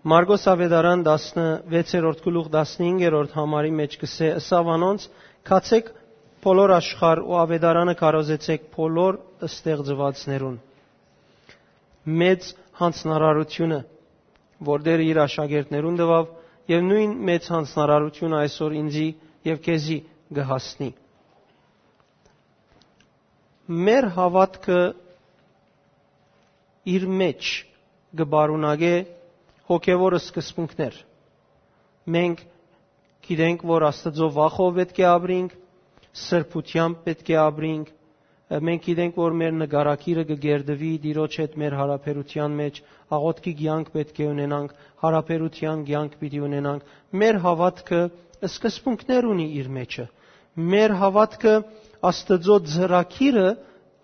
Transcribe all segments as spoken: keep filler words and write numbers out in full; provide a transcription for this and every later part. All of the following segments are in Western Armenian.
Մարկոս Աւետարան, տասնվեցերորդ գլուխ, տասնհինգերորդ համարի մէջ կ'ըսէ. «Ըսաւ անոնց. "Գացէք բոլոր աշխարհ ու աւետարանը քարոզեցէք բոլոր ստեղծուածներուն"»։ Մեծ յանձնարարութիւնը, որ Տէրը իր աշակերտներուն տուաւ, եւ նոյն մեծ յանձնարարութիւնը այսօր ինծի եւ քեզի կը հասնի։ Մեր հաւատքը իր մէջ կը պարունակէ հոգեւոր սկզբունքներ։ Մենք գիտենք, որ Աստուծոյ վախով պէտք է ապրինք, սրբութեամբ պէտք է ապրինք, մենք գիտենք, որ մեր նկարագիրը կը կերտուի Տիրոջ հետ մեր յարաբերութեան մէջ, աղօթքի կեանք պէտք է ունենանք, յարաբերութեան կեանք պիտի ունենանք։ Մեր հաւատքը սկզբունքներ ունի իր մէջը։ Մեր հաւատքը Աստուծոյ ծրագիրը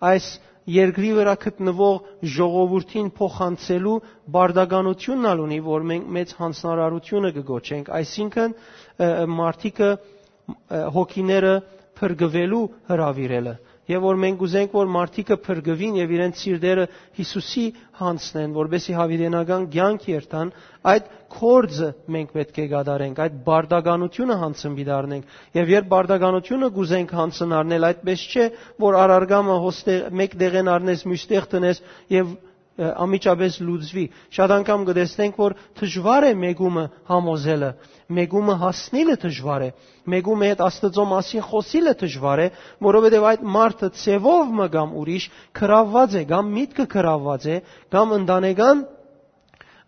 այս երկրի վրայ գտնուող ժողովուրդին փոխանցելու պարտականութիւնն ալ ունի, որ մենք մեծ յանձնարարութիւնը կը կոչենք, այսինքն, ը, մարդիկը, ը, հոգիները փրկուելու հրաւիրելը, եւ որ մենք ուզենք, որ մարդիկը փրկուին եւ իրենց սիրտերը Յիսուսի յանձնեն, որպեսզի յաւիտենական կեանք երթան, այդ գործը մենք պէտք է կատարենք, այդ պարտականութիւնը յանձն պիտի առնենք։ Եւ երբ պարտականութիւնը կ'ուզենք յանձն առնել, այդպես չէ, որ առարգամը հոստե-, մէկ տեղէն առնես, միւս տեղ դնես եւ, ը, անմիջապէս լուծուի։ Շատ անգամ կը տեսնենք, որ դժուար է մեկումը համոզելը, մեկումը հասնիլը դժուար է, մեկումը հետ Աստուծոյ մասին խօսիլը դժուար է, որովհետեւ այդ մարդը ձեւով մը կամ ուրիշ գրաւուած է, կամ միտքը գրաւուած է, կամ ընտանեկան,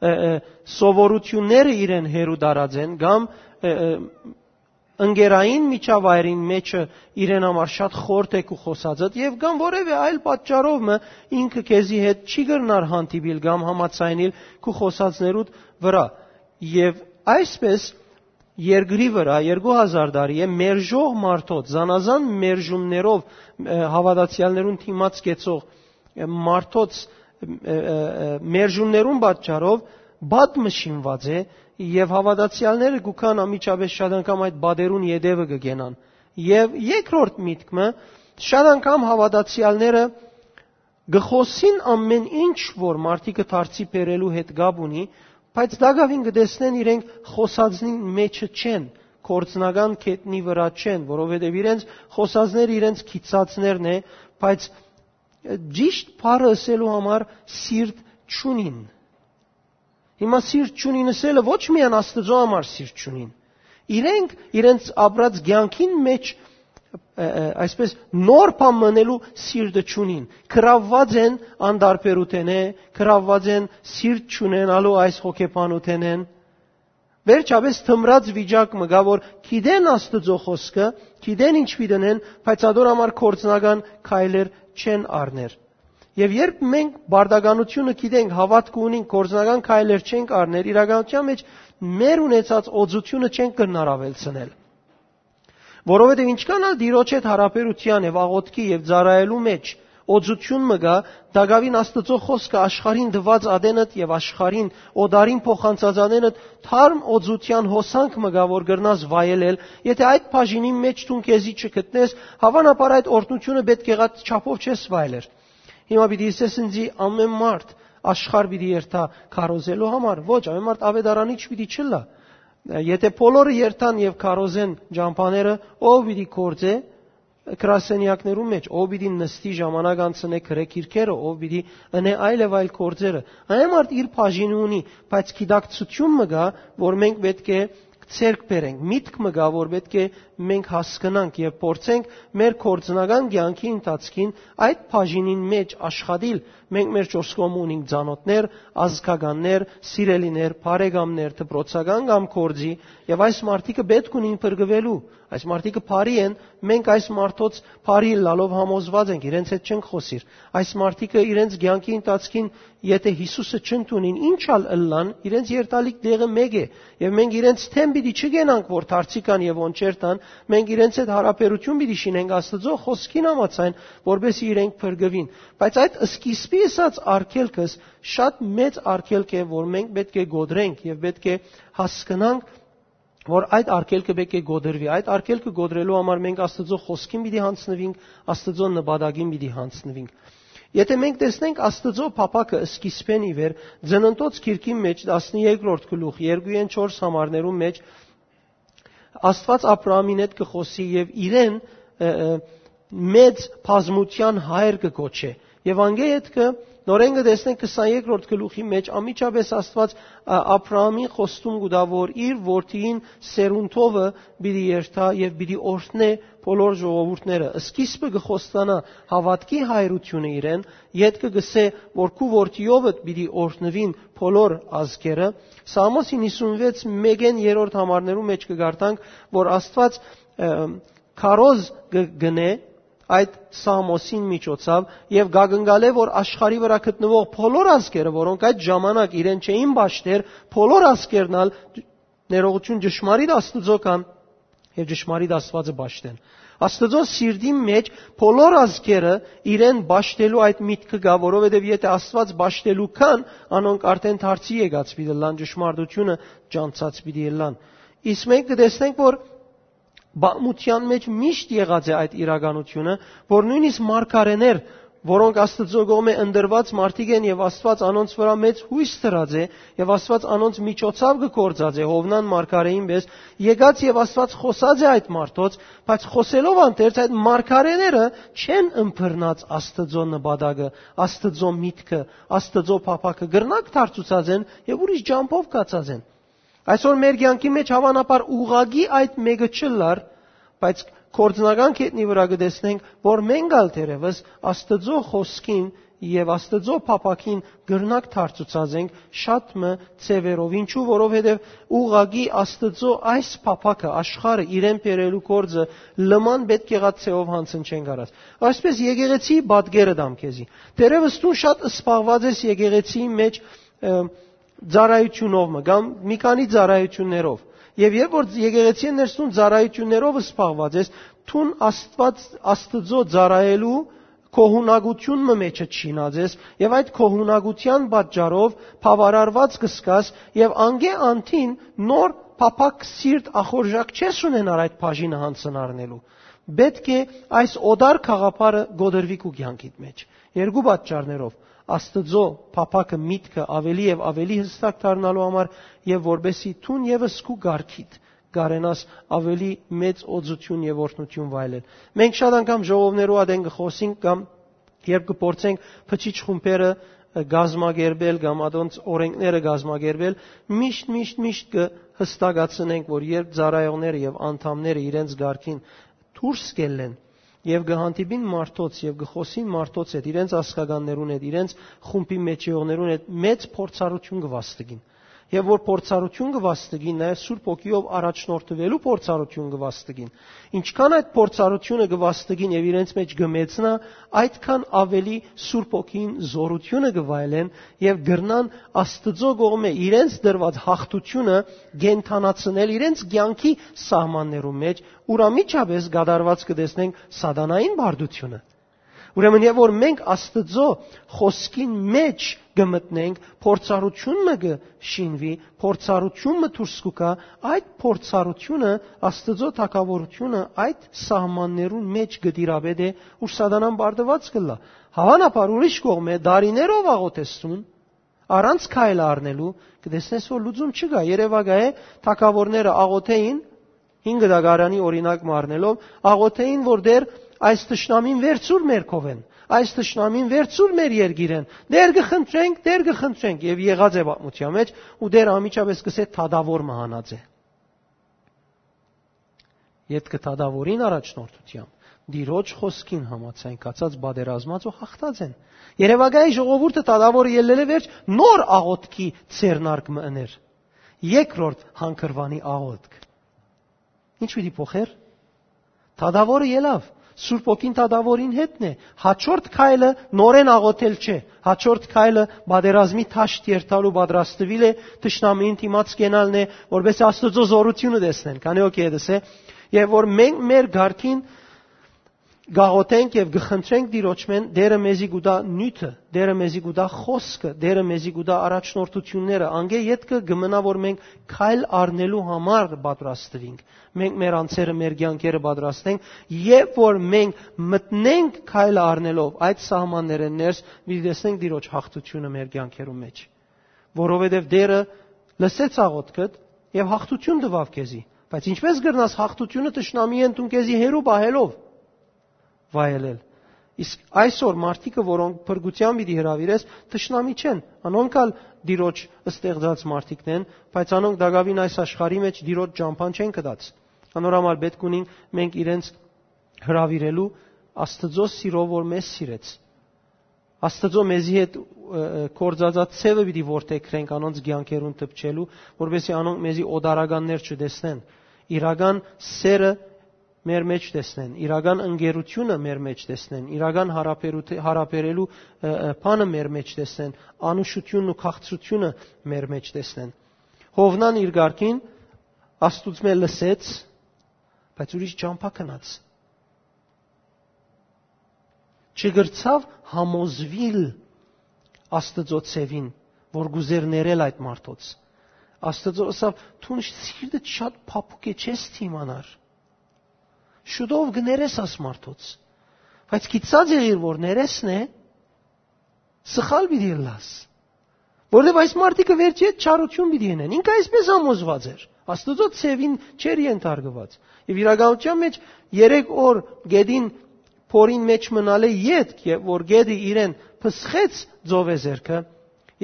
ը, ը, սովորութիւնները իրեն հեռու տարած են, կամ, ը, ը, ընկերային միջավայրին մէջը իրեն համար շատ խորթ է քու խօսածդ, եւ կամ որեւէ այլ պատճառով մը ինքը քեզի հետ չի կրնար հանդիպիլ կամ համաձայնիլ քու խօսածներուդ վրայ։ Եւ այսպես երկրի վրայ երկու հազար տարի է մերժող մարդոց, զանազան մերժումներով, ը, հաւատացեալներուն դիմաց կեցող, ը, մարդոց, ը, ը, ը, մերժումներուն պատճառով պատմը շինուած է, եւ հաւատացեալները գուքան անմիջապէս շատ անգամ այդ պատերուն ետեւը կը կենան։ Եւ երկրորդ միտքը, շատ անգամ հաւատացեալները կը խօսին ամեն ինչ, որ մարդիկը դարձի բերելու հետ կապ ունի, բայց տակաւին կը տեսնեն իրենք խօսածին մէջը չեն, գործնական գետնի վրայ չեն, որովհետեւ իրենց խօսածները իրենց գիծածներն է, բայց ճիշդ բառը ըսելու համար սիրտ չունին։ Հիմա սիրտ չունին ըսելը ոչ միայն Աստուծոյ համար սիրտ չունին։ Իրենք իրենց ապրած կեանքին մէջ, ը, ը, այսպես նոր բան մնելու սիրտը չունին։ Գրաւուած են անտարբերութենէ, գրաւուած են սիրտ չունենալու այս հոգեբանութենէն։ Վերջապէս թմրած վիճակ մը կայ, որ գիտեն Աստուծոյ խօսքը, գիտեն ինչ պիտի ընեն, բայց ատոր համար գործնական քայլեր չեն առներ։ Եւ երբ մենք պարտականութիւնը գիտենք, հաւատքը ունենք, գործնական քայլեր չենք առներ, իրականության մէջ մեր ունեցած օծութիւնը չենք կրնար աւելցնել։ Որովհետեւ ինչքան ալ Տիրոջ հետ յարաբերութեան եւ աղօթքի եւ ծառայելու մէջ օծութիւն մը կայ, տակաւին Աստուծոյ խօսքը, աշխարհին տուած ատենդ եւ աշխարհին օտարին փոխանցած ատենդ թարմ օծութեան հոսանք մը կայ, որ կրնաս վայելել, եթէ այդ բաժինին մէջ դուն քեզի չգտնես, հաւանաբար այդ օրհնութիւնը պէտք եղած չափով չես վայելեր։ Հիմա պիտի ըսես ինձի, ամեն մարդ աշխարհ պիտի երթայ քարոզելու համար։ Ոչ, ամեն մարդ աւետարանիչ պիտի չըլլայ։ Եթէ բոլորը երթան եւ քարոզեն ճամբաները, ո՞վ պիտի գործէ գրասենեակներու մէջ, ո՞վ պիտի նստի, ժամանակ անցնէ, գրէ գիրքերը, ո՞վ պիտի ընէ այլ եւ այլ գործերը։ Ամեն մարդ իր բաժինը ունի, բայց գիտակցութիւն մը կայ, որ մենք պէտք է ձեռք բերենք, միտք մը կայ, որ պէտք է մենք հասկնանք եւ փորձենք մեր գործնական կեանքի ընթացքին այդ բաժինին մէջ աշխատիլ։ Մենք մեր չորս կողմը ունենք ծանօթներ, ազգականներ, սիրելիներ, բարեկամներ, դպրոցական կամ գործի, եւ այս մարդիկը պէտք ունին փրկուելու։ Այս մարդիկը բարի են, մենք այս մարդոց բարի ըլլալով համոզված ենք, իրենց հետ չենք խօսիր։ Այս մարդիկը իրենց կեանքի ընթացքին, եթէ Յիսուսը չընդունին, ինչ ալ ըլլան, իրենց երթալիք տեղը մէկ է, եւ մենք իրենց դէմ պիտի չգենանք, որ դարձի կան եւ ոնչեր տան, մենք իրենց հետ յարաբերութիւն պիտի շինենք Աստուծոյ խօսքին համաձայն, որպեսզի իրենք փրկուին։ Բայց այդ սկիզբի ըսած արգելքս շատ մեծ արգելք է, որ մենք պէտք է կոտրենք եւ պէտք է հասկնանք, որ այդ արգելքը պէտք է կոտրուի։ Այդ արգելքը կոտրելու համար մենք Աստուծոյ խօսքին պիտի յանձնուինք, Աստուծոյ նպատակին պիտի յանձնուինք։ Եթէ մենք տեսնենք Աստուծոյ փափաքը սկիզբէն ի վեր, Ծննդոց գիրքին մէջ, տասներկրորդ գլուխ, երկուէն չորս համարներուն մէջ, Աստուած Աբրահամին հետ կը խօսի եւ իրեն, ը, ը, մեծ բազմութեան հայր կը կոչէ։ Եւ անկէ ետքը նորէն կը տեսնենք քսաներկրորդ գլուխի մէջ, անմիջապէս Աստուած, ը, Աբրահամին խոստում կու տայ, որ իր որդիին սերունդովը պիտի երթայ եւ պիտի օրհնէ բոլոր ժողովուրդները։ Սկիզբը կը խոստանայ հաւատքի հայրութիւնը իրեն, ետքը կ'ըսէ, որ քու որդիովդ պիտի օրհնուին բոլոր ազգերը։ Սաղմոս հինգսունվեց մէկէն երրորդ համարներու մէջ կը կարդանք, որ Աստուած, ը, քարոզ կը գնէ այդ Սաղմոսին միջոցաւ եւ կակնկալէ, որ աշխարհի վրայ գտնուող բոլոր ազգերը, որոնք այդ ժամանակ իրեն չէին պաշտեր, բոլոր ազգերն ալ ներողություն ճշմարիտ Աստուծոյ կան եւ ճշմարիտ Աստուածը պաշտեն։ Աստուծոյ սիրտին մէջ բոլոր ազգերը իրեն պաշտելու այդ միտքը կայ, որովհետեւ եթէ Աստուած պաշտելու կան, անոնք արդեն դարձի եկած պիտի ըլլան, ճշմարտութիւնը ճանչցած պիտի ըլլան։ Իսկ մենք կը տեսնենք, որ պատմութեան մէջ միշտ եղած է այդ իրականութիւնը, որ նոյնիսկ մարգարէներ, որոնք Աստուծոյ կողմէ ընտրուած մարդիկ են եւ Աստուած անոնց վրայ մեծ յոյս դրած է եւ Աստուած անոնց միջոցաւ կը գործածէ Յովնան մարգարէին պէս, եկած եւ Աստուած խօսած է այդ մարդոց, բայց խօսելով անթերց այդ մարգարէները չեն ըմբռնած Աստուծոյ նպատակը, Աստուծոյ միտքը, Աստուծոյ փափաքը, կրնակ դարձուցած են եւ ուրիշ ճամբով գացած են։ Այսօր մեր կեանքի մէջ հաւանաբար ուղղակի այդ մէկը չըլլար, բայց գործնական կետնի վրայ կը տեսնենք, որ մենք ալ թերեւս Աստուծոյ խօսքին եւ Աստուծոյ փափաքին կրնակ դարձուցած ենք շատ մը ձեւերով։ Ինչու, որովհետեւ ուղղակի Աստուծոյ այս փափաքը, աշխարհը իրեն բերելու գործը լման պէտք եղած ձեւով յանձն չեն կարած։ Այսպէս եկեղեցի պատկերը տամ քեզի։ Թերեւս դուն շատ սպառված ես եկեղեցիի մէջ, ը, ծառայութիւնով մը կամ մի քանի ծառայութիւններով։ Եւ երբ որ եկեղեցին ներսուն ծառայութիւններով սպառված ես, դուն Աստուած, Աստուծոյ ծառայելու գոհունակութիւն մը մէջը չինած ես եւ այդ գոհունակութեան պատճառով բաւարարված կը զգաս եւ անկէ անդին նոր փափաք սիրտ ախորժակ չես ունենար այդ բաժինը յանձն առնելու։ Պէտք է այս օտար գաղափարը կոտրուի քու կեանքիդ մէջ։ Երկու պատճառներով. Աստուծոյ փափաքը, միտքը ավելի եւ ավելի յստակ դառնալու համար եւ որպեսզի դուն եւս քու կարգիդ կարենաս ավելի մեծ օծութիւն եւ օրհնութիւն վայելել։ Մենք շատ անգամ ժողովներու ատեն կը խօսենք կամ երբ կը փորձենք բջիջ խումբերը, ը, կազմակերպել կամ ատոնց օրենքները կազմակերպել, միշտ, միշտ, միշտ կը հստակացնենք, որ երբ ծառայողները եւ անդամները իրենց կարգին դուրս կ'ելլեն եւ կը հանդիպին մարդոց եւ կը խօսին մարդոց հետ, իրենց ազգականներուն հետ, իրենց խումբի մէջեողներուն հետ, մեծ փորձառութիւն կը վաստակին։ Եւ որ փորձառութիւն կը վաստակին, նաեւ Սուրբ Հոգիով առաջնորդուելու փորձառութիւն կը վաստակին։ Ինչքան այդ փորձառութիւնը կը վաստակին եւ իրենց մէջ կը մեծնայ, այդքան ավելի Սուրբ Հոգին զօրութիւնը կը վայելեն եւ կրնան Աստուծոյ կողմէ իրենց տրուած յաղթութիւնը կենդանացնել իրենց կեանքի սահմաններու մէջ, ուր անմիջապէս կատարուած կը տեսնենք սատանային բարդութիւնը։ Ուրեմն, երբ որ մենք Աստուծոյ խօսքին մէջ կը մտնենք, փորձառութիւն մը կը շինուի, փորձառութիւն մը դուրս կու գայ, այդ փորձառութիւնը, Աստուծոյ թագաւորութիւնը այդ սահմաններուն մէջ կը տիրապետէ, ուր սատանան բարդուած կ'ըլլայ։ Հաւանաբար ուրիշ կողմէ, դարիներով աղօթես դուն, առանց քայլը առնելու, կը տեսնես, որ լուծում չկայ։ Երեւակայ է, թագաւորները աղօթէին, հինգ դագարանի օրինակ մը առնելով, աղօթէին, որ Տէր, այս թշնամին վերցուր մեր քովէն, այս թշնամին վերցուր մեր երկիրէն, Տէր կը խնդրենք, Տէր կը խնդրենք, եւ եղած է պատմութեան մէջ, ու Տէր անմիջապէս կ'ըսէ. «Թադաւոր մը հանած է»։ Ետքը թադաւորին առաջնորդութեամբ, Տիրոջ խօսքին համաձայն, կացած պատերազմած ու հաղթած են։ Երեւակայի ժողովուրդը թադաւորը ելլելէ վերջ նոր աղօթքի ձեռնարկ մը ըներ։ Երկրորդ հանգրուանի աղօթք։ Ինչ պիտի փոխեր։ Թադաւորը ելաւ։ Սուրբ Հոգին թադաւորին հետն է։ Հաջորդ քայլը նորեն աղոթել չէ։ Հաջորդ քայլը պատերազմի դաշտ երթալու պատրաստուիլ է, թշնամիին դիմաց կենալն է, որպեսզի Աստուծոյ զօրութիւնը տեսնեն։ Քանի օքեյ դսե, եւ որ մենք մեր ղարքին կաղոթենք եւ կը խնդրենք Տիրոջմէն, Տէրը մեզի կու տայ նիւթը, Տէրը մեզի կու տայ խօսքը, Տէրը մեզի կու տայ առաջնորդությունները, անկէ ետքը կը մնայ, որ մենք քայլ առնելու համար պատրաստուինք, մենք մեր անձերը, մեր կեանքերը պատրաստենք, եւ որ մենք մտնենք քայլ առնելով այդ սահմաններէն ներս, պիտի տեսնենք Տիրոջ յաղթութիւնը մեր կեանքերու մեջ, որովհետեւ Տէրը լսեց աղոթքդ եւ յաղթութիւն տուաւ քեզի։ Բայց ինչպե՞ս կրնաս յաղթութիւնը թշնամիէն դուն քեզի հեռու պահելով վայելել։ Իսկ այսօր մարդիկը, որոնք փրկութեան պիտի հրաւիրես, թշնամի չեն, անոնք ալ Տիրոջ ստեղծած մարդիկն են, բայց անոնք տակաւին այս աշխարհի մեջ Տիրոջ ճամբան չեն գտած։ Անոր համար պէտք ունին մենք իրենց հրաւիրելու Աստուծոյ սիրով, որ մեզ սիրեց։ Աստուծոյ մեզի հետ, ը, ը, գործածած ձեւը պիտի որդեգրենք անոնց կեանքերուն դպչելու, որպեսզի անոնք մեզի օտարականներ չտեսնեն, իրական սերը մեր մեջ տեսնեն, իրական ընկերությունը մեր մեջ տեսնեն, իրական հարաբերութ-, հարաբերելու, ը, ը, բանը մեր մեջ տեսնեն, անուշությունն ու քաղցրությունը մեր մեջ տեսնեն։ Յովնան իր կարգին Աստուծմէ լսեց, բայց ուրիշ ճամբայ գնաց։ Չկրցաւ համոզուիլ Աստուծոյ ձեւին, որ կ'ուզէր ներել այդ մարդոց։ Աստուծոյ ըսաւ. «Դուն սիրտդ շատ փափուկ է, չես դիմանար։ Շուտով կը ներես աս մարդոց»։ Բայց գիտցած եղիր, որ ներեսն է, սխալ պիտի ըլլաս։ Որովհետեւ այս մարդիկը վերջի հետ չարություն պիտի ընեն։ Ինքը այսպես համոզված էր։ Աստուծոյ ձեւին չէր ենթարկուած։ Եւ իրականութեան մեջ երեք օր գետին, փորին մեջ մնալէ ետք, եւ որ գետը իրեն փսխեց ծովեզերքը,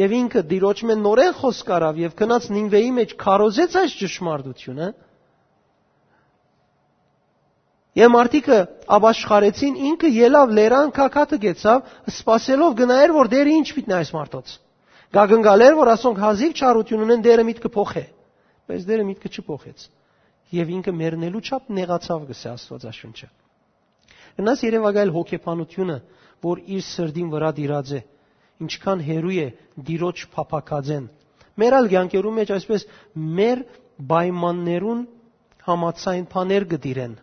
եւ ինքը Տիրոջմէ նորեն խօսք առաւ եւ գնաց Նինվէի մեջ քարոզեց այս ճշմարտությունը, եւ մարդիկը ապաշխարեցին, ինքը ելաւ լերան, գագաթը կեցաւ, սպասելով կը նայէր, որ Տէրը ինչ պիտի նայ այս մարդոց։ Կակնկալէր, որ ասոնք հազիւ չարություն ունեն, Տէրը միտքը փոխէ։ Բայց Տէրը միտքը չփոխեց։ Եւ ինքը մեռնելու չափ նեղացաւ, կ'ըսէ Աստուածաշունչը։ Կրնաս երեւակայել հոգեբանությունը, որ իր սրտին վրայ տիրած է, ինչքան հեռու է Տիրոջ փափաքածէն։ Մեր ալ կեանքերուն մեջ այսպես մեր պայմաններուն համաձայն բաներ կը տիրեն։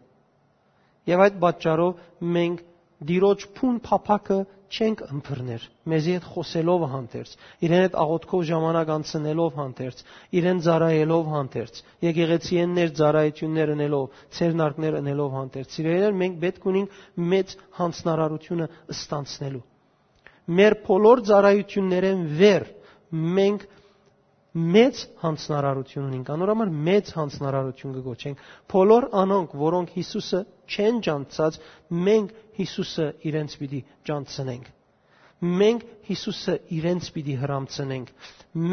Եւ այդ պատճառով մենք Տիրոջ բուն փափաքը չենք ըմբռներ, մեզի հետ խօսելով հանդերձ, իրեն հետ աղոթքով ժամանակ անցնելով հանդերձ, իրեն ծառայելով հանդերձ, եկեղեցիէն ներս ծառայություններ ընելով, ձեռնարկներ ընելով հանդերձ։ Սիրելիներ, մենք պէտք ունենք մեծ յանձնարարությունը ստանցնելու։ Մեր բոլոր ծառայություններէն վեր մենք մեծ յանձնարարություն ունենք, անոր համար մեծ յանձնարարություն կը կոչենք։ Բոլոր անոնք, որոնք Յիսուսը չեն ճանչցած, մենք Յիսուսը իրենց պիտի ճանչցնենք։ Մենք Յիսուսը իրենց պիտի հրամցնենք։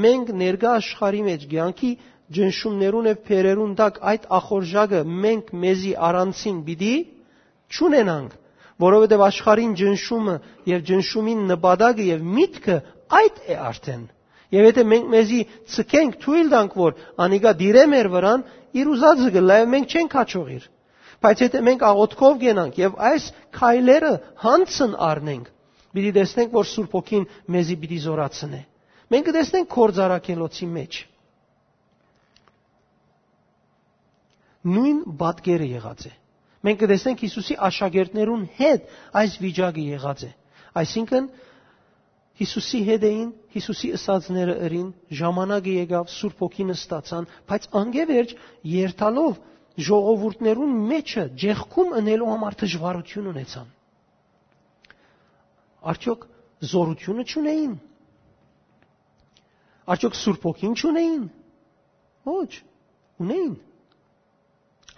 Մենք ներկայ աշխարհի մեջ կեանքի ճնշումներուն եւ բերերուն տակ այդ ախորժակը մենք մեզի առանցին պիտի չունենանք, որովհետեւ աշխարհին ճնշումը եւ ճնշումին նպատակը եւ միտքը այդ է արդեն։ Եւ եթե մենք մեզի ցկենք, թոյլ տանք, որ անիկա դիրէ մեր վրան, իր ուզածը կ'ըլլայ, մենք չենք հաջողիր։ Բայց եթե մենք աղոթքով կենանք եւ այս քայլերը յանձն առնենք, պիտի տեսնենք, որ Սուրբ Հոգին մեզի պիտի զորացնէ։ Մենք կը տեսնենք Գործարքելոցի մեջ նոյն պատկերը եղած է։ Մենք կը տեսնենք Յիսուսի աշակերտներուն հետ այս վիճակը եղած է։ Այսինքն, Յիսուսի հետ էին, Յիսուսի ըսածները ըրին, ժամանակը եկաւ, Սուրբ Հոգին ստացան, բայց անկէ վերջ երթալով ժողովուրդներուն մեջը ջեղքում ընելու համար դժվարություն ունեցան։ Արդյոք զորությունը չունեին։ Արդյոք Սուրբ Հոգին չունեին։ Ոչ, ունեին։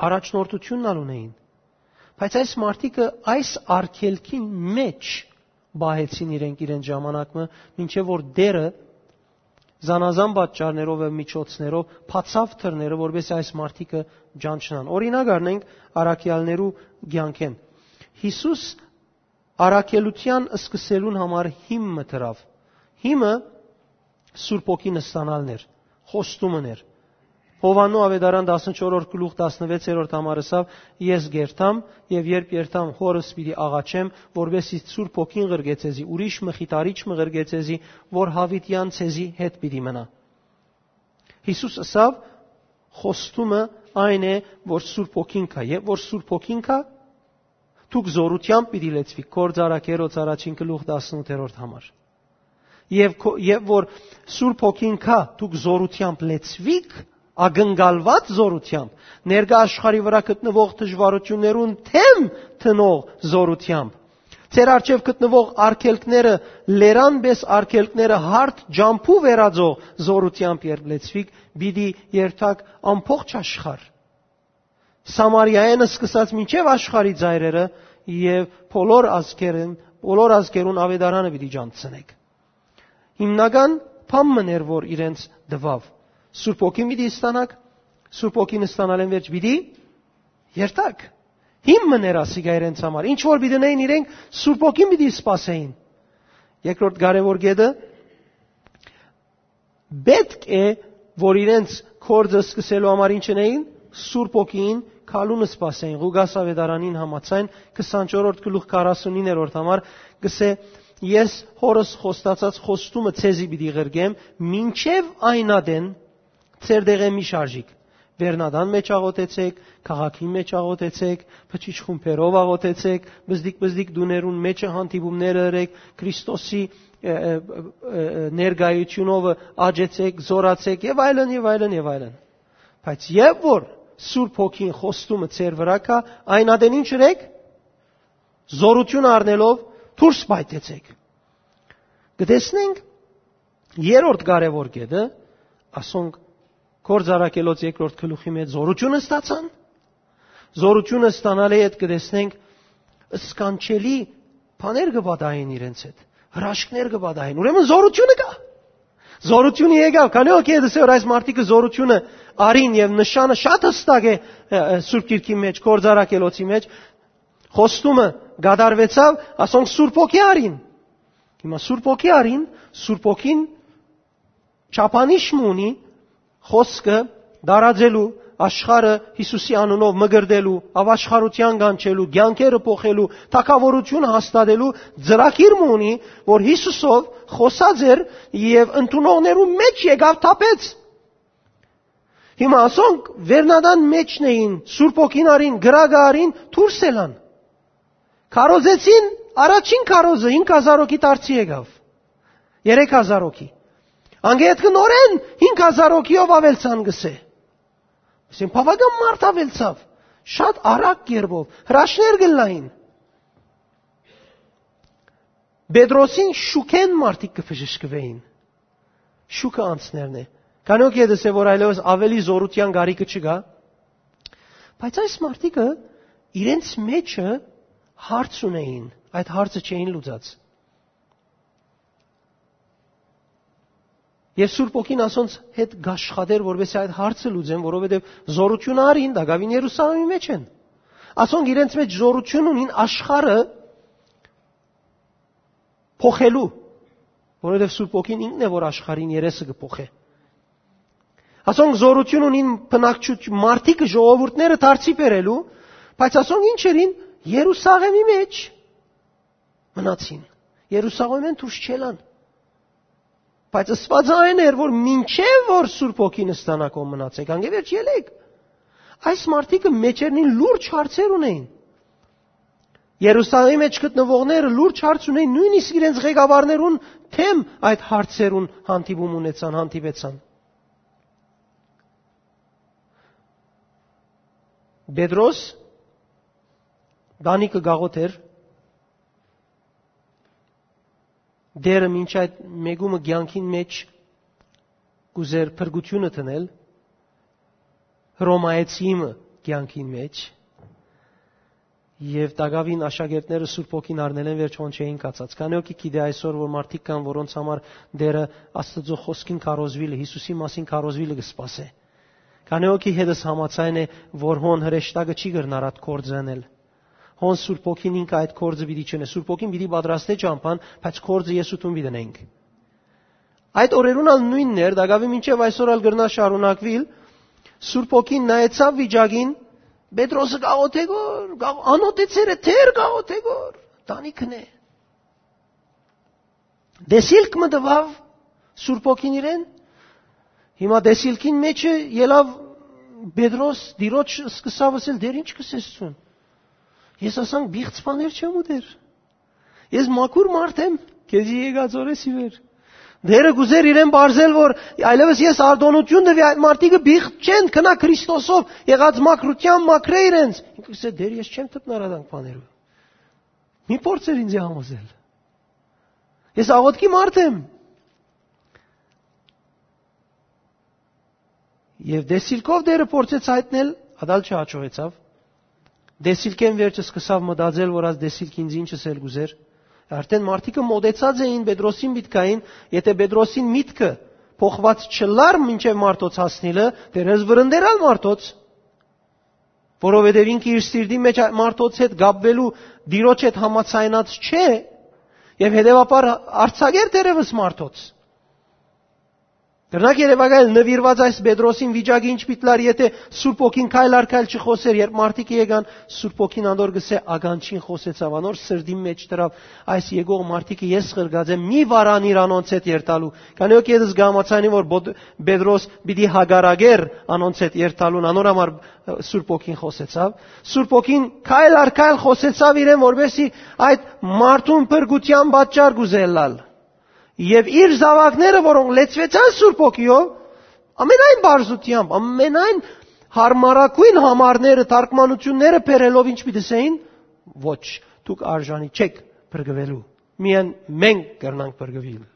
Առաջնորդությունն ալ ունեին։ Բայց այս մարդիկը այս արգելքին մեջ պահեցին իրենք իրենց ժամանակը, մինչեւ որ Տէրը զանազան պատճառներով եւ միջոցներով բացաւ դռները, որպեսզի այս մարդիկը ճանչնան։ Օրինակ առնենք առաքյալներու կեանքէն։ Յիսուս առաքելութեան սկսելուն համար հիմը դրաւ։ Հիմը Սուրբ Հոգին ստանալն էր, խոստումն էր։ Յովհաննու Ավետարան տասնչորրորդ գլուխ տասնվեցերորդ համար ըսաւ. «Ես կ'երթամ, եւ երբ երթամ, Հօրս պիտի աղաչեմ, որպեսզի Սուրբ Հոգին ղրկէ ձեզի, ուրիշ մխիթարիչ մը ղրկէ ձեզի, որ յաւիտեան ձեզի հետ պիտի մնայ»։ Յիսուս ըսաւ. «Խոստումը այն է, որ Սուրբ Հոգին կայ, եւ որ Սուրբ Հոգին կայ, Դուք զօրութեամբ պիտի լեցուիք, Գործարարներոց առաջին գլուխ տասնութերորդ համար։ Եւ քո-, եւ որ Սուրբ Հոգին գայ, դուք զօրութեամբ լեցուիք, ակնկալուած զօրութեամբ, ներկայ աշխարհի վրայ գտնուող դժուարութիւններուն դէմ դնող զօրութեամբ, ձեր առջեւ գտնուող արգելքները լերան պէս արգելքները հարթ ճամբու վերածող զօրութեամբ երբ լեցուիք, պիտի երթաք ամբողջ աշխարհ, Սամարիայէն սկսած մինչեւ աշխարհի ծայրերը, եւ բոլոր ազգերուն, բոլոր ազգերուն աւետարանը պիտի ճանչցնէք։ Հիմնական բան մըն էր, որ իրենց տուաւ. Սուրբ Հոգին պիտի ստանաք, Սուրբ Հոգին ստանալէն վերջ պիտի երթաք։ Հիմն մըն էր ասիկա իրենց համար։ Ինչ որ պիտի ընէին իրենք, Սուրբ Հոգին պիտի սպասէին։ Երկրորդ կարեւոր կետը, պէտք է, որ իրենց գործը սկսելու համար ինչ ընէին, Սուրբ Հոգին քալուն սպասէին, Ղուկաս աւետարանին համաձայն, քսանչորսերորդ գլուխ քառասունիններորդ համար, կսէ. «Ես Հօրս խոստացած խոստումը ձեզի պիտի ղրկեմ, մինչեւ այն ատեն ձեր տեղէ մի շարժիք։ Վերնատան մէջ աղօթեցեք, քաղաքին մէջ աղօթեցեք, բջիջ խումբերով աղօթեցեք, բզդիկ-բզդիկ տուներուն մէջը հանդիպումները ըրեք, Քրիստոսի, ը, ը, ը, ը, ներկայությունովը աճեցեք, զորացեք» եւ այլն, եւ այլն, եւ այլն։ Բայց երբ որ Սուրբ Հոգին խոստումը ձեր վրայ գայ, այն ատեն ինչ ըրեք, զորություն առնելով դուրս պայթեցեք։ Կտեսնենք երրորդ կարեւոր կետը, ասոնք Գործարարներոց երկրորդ գլուխի մեջ զորությունը ստացան, զորությունը ստանալէ հետ կտեսնենք սքանչելի բաներ կը պատահեն իրենց հետ, հրաշքներ կը պատահեն, ուրեմն զորությունը կայ։ Զորությունը եկաւ, քանի օ կեդս է որ այս մարդիկը զորությունը արին եւ նշանը շատ հստակ է, ը, ը, Սուրբ Գիրքի մեջ, Գործարարներոցի մեջ, խոստումը կատարվեցաւ, ասոնք Սուրբ Հոգի արին։ Հիմա Սուրբ Հոգի արին, Սուրբ Հոգին չափանիշ մը ունի, խոսքը դարածելու, աշխարհը Յիսուսի անունով մկրտելու, աւաշխարութեան կանչելու, կեանքերը փոխելու, թագաւորությունը հաստատելու ծրագիր մը ունի, որ Յիսուսով խօսած էր եւ ընդունողներու մեջ եկաւ թափեց։ Հիմա ասոնք վերնատան մեջն էին, Սուրբ Հոգին արին, կրակը արին, դուրս ելան։ Քարոզեցին, առաջին քարոզը հինգ հազար հոգի դարձի եկաւ։ Երեք հազար հոգի։ Անկէ ետքը նորէն հինգ հազար հոգիով աւելցան, կսէ։ Ասեն, բաւական մարդ աւելցաւ, շատ արագ կերպով, հրաշքներ կ'ըլլային։ Պետրոսին շուքէն մարդիկ կը բժշկուէին։ Շուքը անցներն է։ Քանի օ կեդս է որ այլեւս աւելի զորութեան կարիքը չկայ, բայց այս մարդիկը իրենց մեջը հարց ունեին, այդ հարցը չէին լուծած։ Եւ Սուրբ Հոգին ասոնց հետ կաշխատեր, որպեսզի այդ հարցը լուծեն, որովհետեւ զորությունը արին, տակաւին Երուսաղեմի մեջ են։ Ասոնք իրենց մեջ զորություն ունին աշխարհը փոխելու, որովհետեւ Սուրբ Հոգին ինքն է, որ աշխարհին երեսը կը փոխէ։ Ասոնք զորություն ունին բնակչութ-, մարդիկը, ժողովուրդները դարձի բերելու, բայց ասոնք ինչ ըրին, Երուսաղեմի մեջ մնացին։ Երուսաղեմէն դուրս չելան։ Բայց ըսուածը այն էր, որ մինչեւ որ Սուրբ Հոգին ստանաք, ով մնացեք, անկէ վերջ ելեք։ Այս մարդիկը մեջերնին լուրջ հարցեր ունեին։ Երուսաղեմի մեջ գտնուողները լուրջ հարց ունեին, նոյնիսկ իրենց ղեկավարներուն դէմ այդ հարցերուն հանդիպում ունեցան, հանդիպեցան։ Պետրոս տանիքը գաղութ էր, դերը մինչ այդ մեկումը կեանքին մեջ կ'ուզեր փրկությունը դնել, Հռոմայեցի մը կեանքին մեջ, եւ տակաւին աշակերտները Սուրբ Հոգին առնելէն վերջ հոն չէին կացած։ Քանի օ գիտի այսօր, որ մարդիկ կան, որոնց համար դերը Աստծո խոսքին քարոզուիլը, Յիսուսի մասին քարոզուիլը կը սպասէ։ Քանի օ գի հետս համաձայն է, որ հոն հրեշտակը չի կրնար այդ գործը ընել։ Հոն Սուրբ Հոգին ինքը այդ գործը պիտի չընէ։ Սուրբ Հոգին պիտի պատրաստէ ճամբան, բայց գործը ես ու դուն պիտի ընենք։ Այդ օրերուն ալ նոյնն էր, տակաւի մինչեւ այսօր ալ կրնա շարունակուիլ, Սուրբ Հոգին նայեցաւ վիճակին, Պետրոսը գաղութ է գոր, գաղ-, անօթեցերը դեր գաղութ է գոր, տանիքն է։ Տեսիլք մը տուաւ Սուրբ Հոգին իրեն, հիմա տեսիլքին մեջը ելաւ Պետրոս, Տիրոջ սկսաւ ըսել, «Դեր ի՞նչ կ'ըսես ցուն»։ Ես ասանք պիղծ բաներ չեմ ուտեր։ Ես մաքուր մարդ եմ, քեզի եկած օրէս ի վեր։ Տէրը կ'ուզէր իրեն պարզել, որ այլեւս ես արտօնութիւն տուի, այդ մարդիկը պիղծ չեն, գնայ Քրիստոսով, եղած մաքրութեան մաքրէ իրենց։ Ինքը կ'ըսէ. «Տէր, ես չեմ դպնար ադանք բաներու։ Մի փորձեր ինձի համոզել։ Ես աղօթքի մարդ եմ»։ Եւ տեսիլքով Տէրը փորձեց հայտնել, ատալ չհաջողեցաւ։ Տեսիլքէն վերջը սկսաւ մտածել, որ այս տեսիլքը ինձ ինչ ըսել կ'ուզէր։ Արդէն մարդիկը մօտեցած էին Պետրոսին միտքային, եթէ Պետրոսին միտքը փոխուած չըլլար մինչեւ մարդոց հասնիլը, դեռ ես վրընդերալ մարդոց, որովհետեւ ինքը իր սիրտի մեջ այդ մարդոց հետ կապուելու, Տիրոջ հետ համաձայնած չէ, եւ հետեւաբար արձակեր դերևս մարդոց։ Կրնակ երեւակայել նուիրուած այս Պետրոսին վիճակը ինչ պիտի լար, եթէ Սուրբ Հոգին քայլ առ քայլ չխօսեր, երբ մարդիկը եկան, Սուրբ Հոգին անոր կ'ըսէ. «Ականջին խօսեցաւ, անոր սրտին մեջ դրաւ, այս եկող մարդիկը ես ղրկած եմ, մի վարանիր անոնց հետ երթալու»։ Քանի որ ես կհամաձայնեմ, որ Պոտ-, Պետրոս պիտի հակառակէր անոնց հետ երթալուն, անոր համար, ը, Սուրբ Հոգին խօսեցաւ։ Սուրբ Հոգին քայլ առ քայլ խօսեցաւ իրեն, որպեսզի այդ մարդուն փրկութեան պատճառ կ'ուզէ ըլլալ։ Եւ իր զաւակները, որոնք լեցուեցան Սուրբ Հոգիով, ամենայն պարզութեամբ, ամենայն յարմարագոյն համարները, թարգմանութիւնները բերելով, ինչ պիտի ըսէին. «Ոչ, դուք արժանի չէք փրկուելու։ Միայն մենք կրնանք փրկուիլ։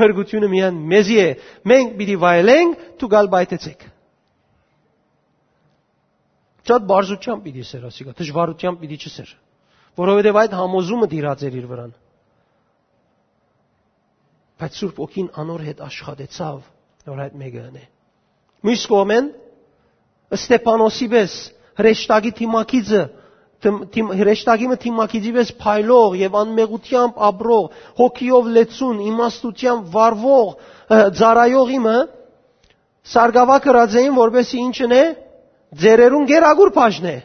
Փրկութիւնը միայն մեզի է։ Մենք պիտի վայելենք, դուք ալ պայթեցէք»։ Շատ պարզութեամբ պիտի ըսէր ասիկա, դժուարութեամբ պիտի չըսէր, որովհետեւ այդ համոզումը տիրած էր իր վրան։ Բայց Սուրբ Հոգին անոր հետ աշխատեցաւ, որ այդ մէկը ընէ։ Միւս կողմէն, Ստեփանոսի պէս հրեշտակի դիմագիծը, դիմ-, դիմ-, հրեշտակի մը դիմագիծի պէս փայլող եւ անմեղութեամբ ապրող, հոգիով լեցուն, իմաստութեամբ վարվող, ը, ծառայողի մը, սարկաւա կրած էին, որպեսզի ինչ ընէ, ծերերուն գերագուր բաժնէ։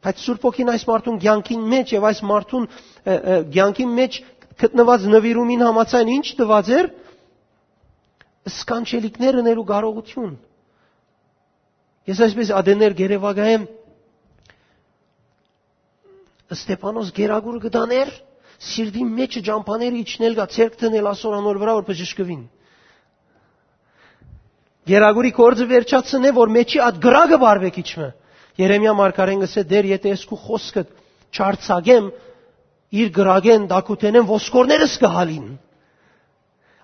Բայց Սուրբ Հոգին այս մարդուն կեանքին մեջ եւ այս մարդուն, ը, ը, կեանքին մեջ գտնուած նուիրումին համաձայն ինչ տուած էր, սքանչելիքներ ընելու կարողութիւն։ Ես այսպես ատեներ գերեվակայեմ, Ստեփանոս գերագուրը կը տանէր, սիրտին մեջը ճամբաները իջնել գա, ձեռք դնել ասոր անոր վրայ, որ բժշկուին։ Գերագուրի գործը վերջացնէ, որ մեջի այդ կրակը բարվեք իջմը։ Երեմիա մարգարեն կ'ըսէ. «Տէր, եթէ ես քու խօսքդ չարձակեմ, իր կրակէն, տակութենէն ոսկորներս կը հալին»։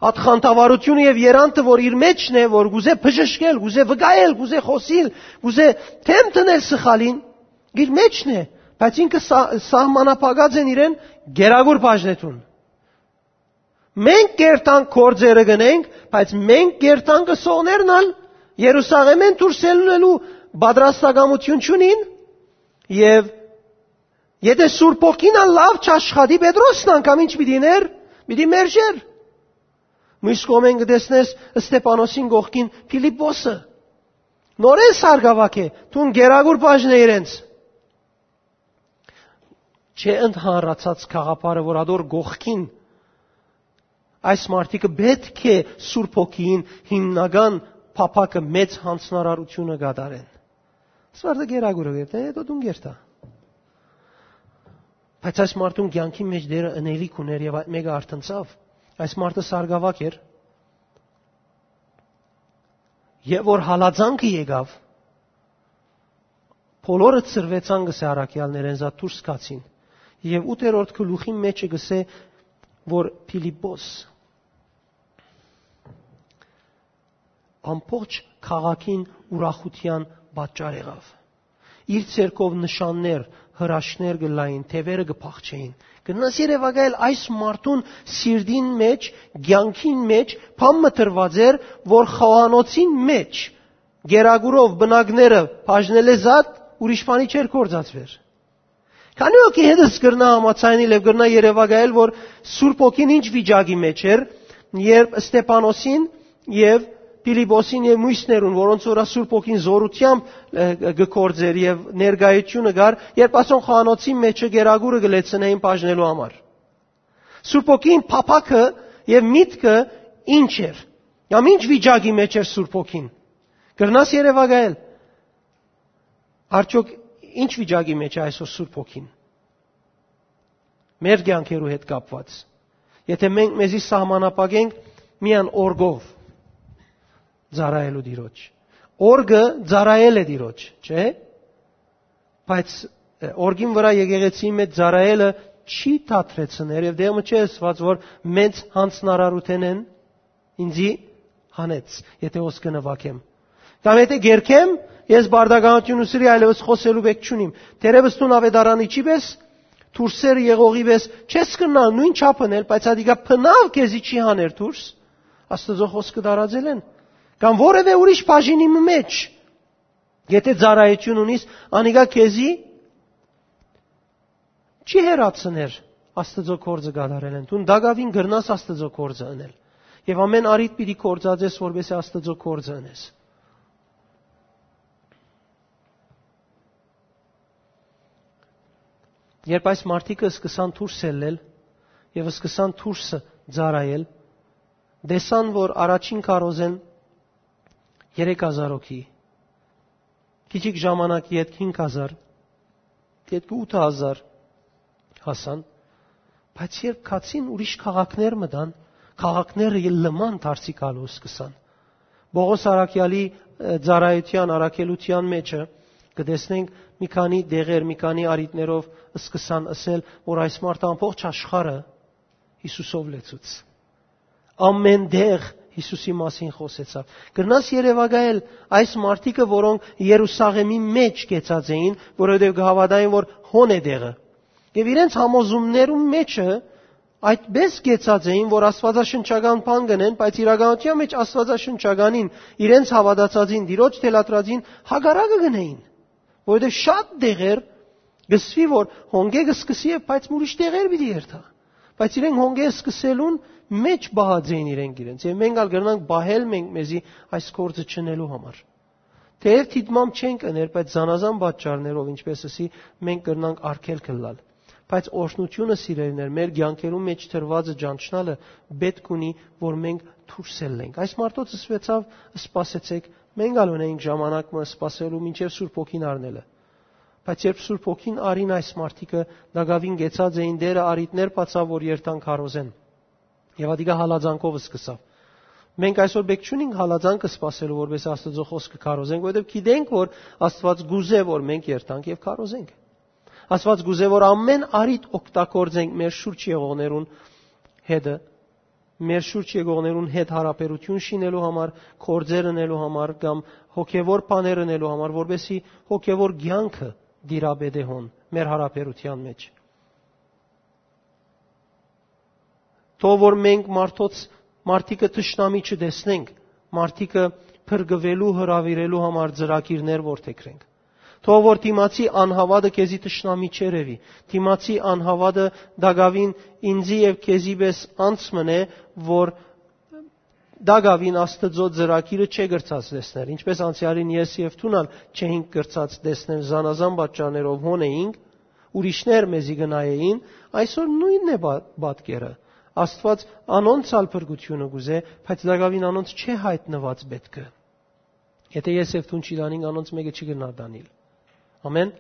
Այդ խանդավառութիւնը եւ երանդը, որ իր մեջն է, որ կ'ուզէ բժշկել, կ'ուզէ վկայել, կ'ուզէ խօսիլ, կ'ուզէ դէմ դնել սխալին, իր մեջն է, բայց ինքը սա-, սահմանափակած են իրեն գերագուր բաժնեդուն։ Մենք կերտանք գործերը գնենք, բայց մենք կերտանք ըսողներն ալ Երուսաղէմէն դուրս ելնելու պատրաստակամութիւն չունին, եւ եթէ Սուրբ Հոգին ալ լաւ չաշխատի, Պետրոսն անգամ ինչ պիտի ներ, պիտի մերժեր։ Մյուս կողմէն կը տեսնես Ստեփանոսին կողքին Փիլիպպոսը, նորէն սարկաւակ է, դուն գերագուր բաժնէ իրենց։ Չէ ընդհանրացած գաղափարը, որ ադոր կողքին այս մարդիկը պէտք է Սուրբ Հոգիին հիմնական փափաքը, մեծ յանձնարարութիւնը կատարեն։ Սվարտը գերագուրը կերտա, հետո դուն կերտա։ Բայց այս մարդուն կեանքի մեջ Տէրը ընելիք ուներ եւ այդ մէկը արթնցաւ։ Այս մարդը սարկաւակ էր, եւ որ հալածանքը եկաւ, բոլորը ցրուեցան, կ'ըսէ առաքեալներէն, զատ դուրս գացին։ Եւ ութերորդ գլուխին մեջը կ'ըսէ, որ Փիլիպպոս ամբողջ քաղաքին ուրախութեան պատճառ եղաւ։ Իր ձեռքով նշաններ, հրաշքներ կ'ըլլային, թեւերը կը փախչէին։ Կրնաս երեւակայել այս մարդուն սիրտին մեջ, կեանքին մեջ բան մը դրուած էր, որ խոհանոցին մեջ գերագուրով պնակները բաժնելէ զատ ուրիշ բանի չէր գործածուեր։ Քանի՞ հոգի հետս կրնայ համաձայնել եւ կրնայ երեւակայել, որ Սուրբ Հոգին ինչ վիճակի մեջ էր, երբ Ստեփանոսին եւ Փիլիպպոսին եւ մյուսներուն, որոնց վրայ Սուրբ Հոգին զօրութեամբ, ը, կը գործէր եւ ներկայությունը կար, երբ ասոնք խոհանոցին մեջը գերագուրը կը լեցնէին բաժնելու համար։ Սուրբ Հոգին փափաքը եւ միտքը ինչ էր։ Կամ ինչ վիճակի մեջ էր Սուրբ Հոգին։ Կրնաս երեւակայել։ Արդյոք Ինչ վիճակի մեջ է այսօր Սուրբ Հոգին մեր կեանքերու հետ կապուած, եթե մենք մեզի սահմանափակենք միայն օրկով ծառայելու Տիրոջ։ Օրկը ծառայել է Տիրոջ, չէ՞։ Բայց օրկին վրայ եկեղեցիի մեջ ծառայելը չի թատրեցներ, եւ դեղը չէ ըսուած, որ մեծ յանձնարարութենէն ինձի հանեց, եթե հոս կը նուագեմ, կամ եթե կերկեմ, ես բարդականություն ուսրի, այլևս խօսելու բեք չունիմ։ Թերեւս դուն աւետարանիչի պէս, դուրսերը եղողի պէս չես կրնար նոյն չափ ընել, բայց ատիկա բնաւ քեզի չի հաներ դուրս Աստուծոյ խօսքը տարածելէն։ Կամ որևէ ուրիշ բաժինի մը մեջ, եթե ծառայություն ունիս, անիկա քեզի չի հեռացներ Աստուծոյ գործը կատարելէն։ Դուն տակաւին կրնաս Աստուծոյ գործը ընել, եւ ամեն առիթ պիտի գործածես, որպեսզի Աստուծոյ գործը ընես։ Երբ այս մարդիկը սկսան դուրս ելլել եւ սկսան դուրսը ծառայել, տեսան, որ առաջին քարոզէն երեք հազար հոգի, քիչիկ ժամանակ ետք հինգ հազար, ետք ութ հազար հասան, բայց երբ գացին ուրիշ քաղաքներ մտան, քաղաքները լման դարձի գալու սկսան։ Պողոս առաքեալի, ը, ծառայութեան, առաքելութեան մեջը կը տեսնենք մի քանի դեղեր, մի քանի առիթներով սկսան ըսել, որ այս մարդը ամբողջ աշխարհը Յիսուսով լեցուց։ Ամեն տեղ Յիսուսի մասին խօսեցաւ։ Կրնաս երեւակայել այս մարդիկը, որոնք Երուսաղեմի մեջ կեցած էին, որովհետեւ կը հաւատային, որ հոն է տեղը։ Եւ իրենց համոզումներու մեջը այդպես կեցած էին, որ աստվածաշնչական բան կ'ընեն, բայց իրականութեան մեջ աստվածաշնչականին, իրենց հաւատացածին, Տիրոջ թելադրածին հակառակը կ'ընէին, որովհետեւ շատ տեղեր կ'ըսուի, որ հոնկէ կը սկսի եւ բայց ուրիշ տեղեր պիտի երթայ։ Բայց իրենք հոնկէ սկսելուն մեջ պահած էին իրենք իրենց, եւ մենք ալ կրնանք պահել մենք մեզի այս գործը չընելու համար։ Թէեւ դիտմամբ չենք ըներ, բայց զանազան պատճառներով, ինչպես ըսի, մենք կրնանք արգելք ըլլալ։ Բայց օրհնությունը, սիրելիներ, մեր կեանքերու մեջ դրուածը ճանչնալը պէտք ունի, որ մենք դուրս ելլենք։ Այս մարդոց ըսուեցաւ. «Սպասեցեք, մենք ալ ունենք ժամանակ մը սպասելու մինչեւ Սուրբ Հոգին առնելը»։ Բայց երբ Սուրբ Հոգին առին այս մարդիկը, տակաւին կեցած էին, Տէրը առիթներ բացաւ, որ երթան քարոզեն։ Եւ ատիկա հալածանքով սկսաւ։ Մենք այսօր պէտք չունինք հալածանքը սպասելու, որպեսզի Աստուծոյ խօսքը քարոզենք, որովհետեւ գիտենք, որ Աստուած կ'ուզէ, որ մենք երթանք եւ քարոզենք։ Աստուած կ'ուզէ, որ ամեն առիթ օգտագործենք մեր շուրջ եղողներուն հետը, մեր շուրջ եղողներուն հետ յարաբերութիւն շինելու համար, գործեր ընելու համար կամ հոգեւոր բաներ ընելու համար, որպեսզի հոգեւոր կեանքը տիրապետէ հոն մեր յարաբերութեան մեջ։ Թող որ մենք մարդոց, մարդիկը թշնամի չտեսնենք, մարդիկը փրկուելու, հրաւիրելու համար ծրագիրներ որդեգրենք։ Թող որ դիմացի անհաւատը քեզի թշնամի չերեւի, դիմացի անհաւատը տակաւին ինձի եւ քեզի պէս անց մնէ, որ տակաւին Աստուծոյ ծրագիրը չէ կրցած տեսնել, ինչպես անցեալին ես եւ դուն ալ չէինք կրցած տեսնել զանազան պատճառներով հոն էինք, ուրիշներ մեզի կը նայէին, այսօր նոյնն է պա-, պատկերը։ Աստուած անոնց ալ փրկութիւնը կ'ուզէ, բայց տակաւին անոնց չէ յայտնուած պէտքը։ Եթէ ես եւ դուն չի տանինք, անոնց մէկը չի կրնար տանիլ։ Ամեն։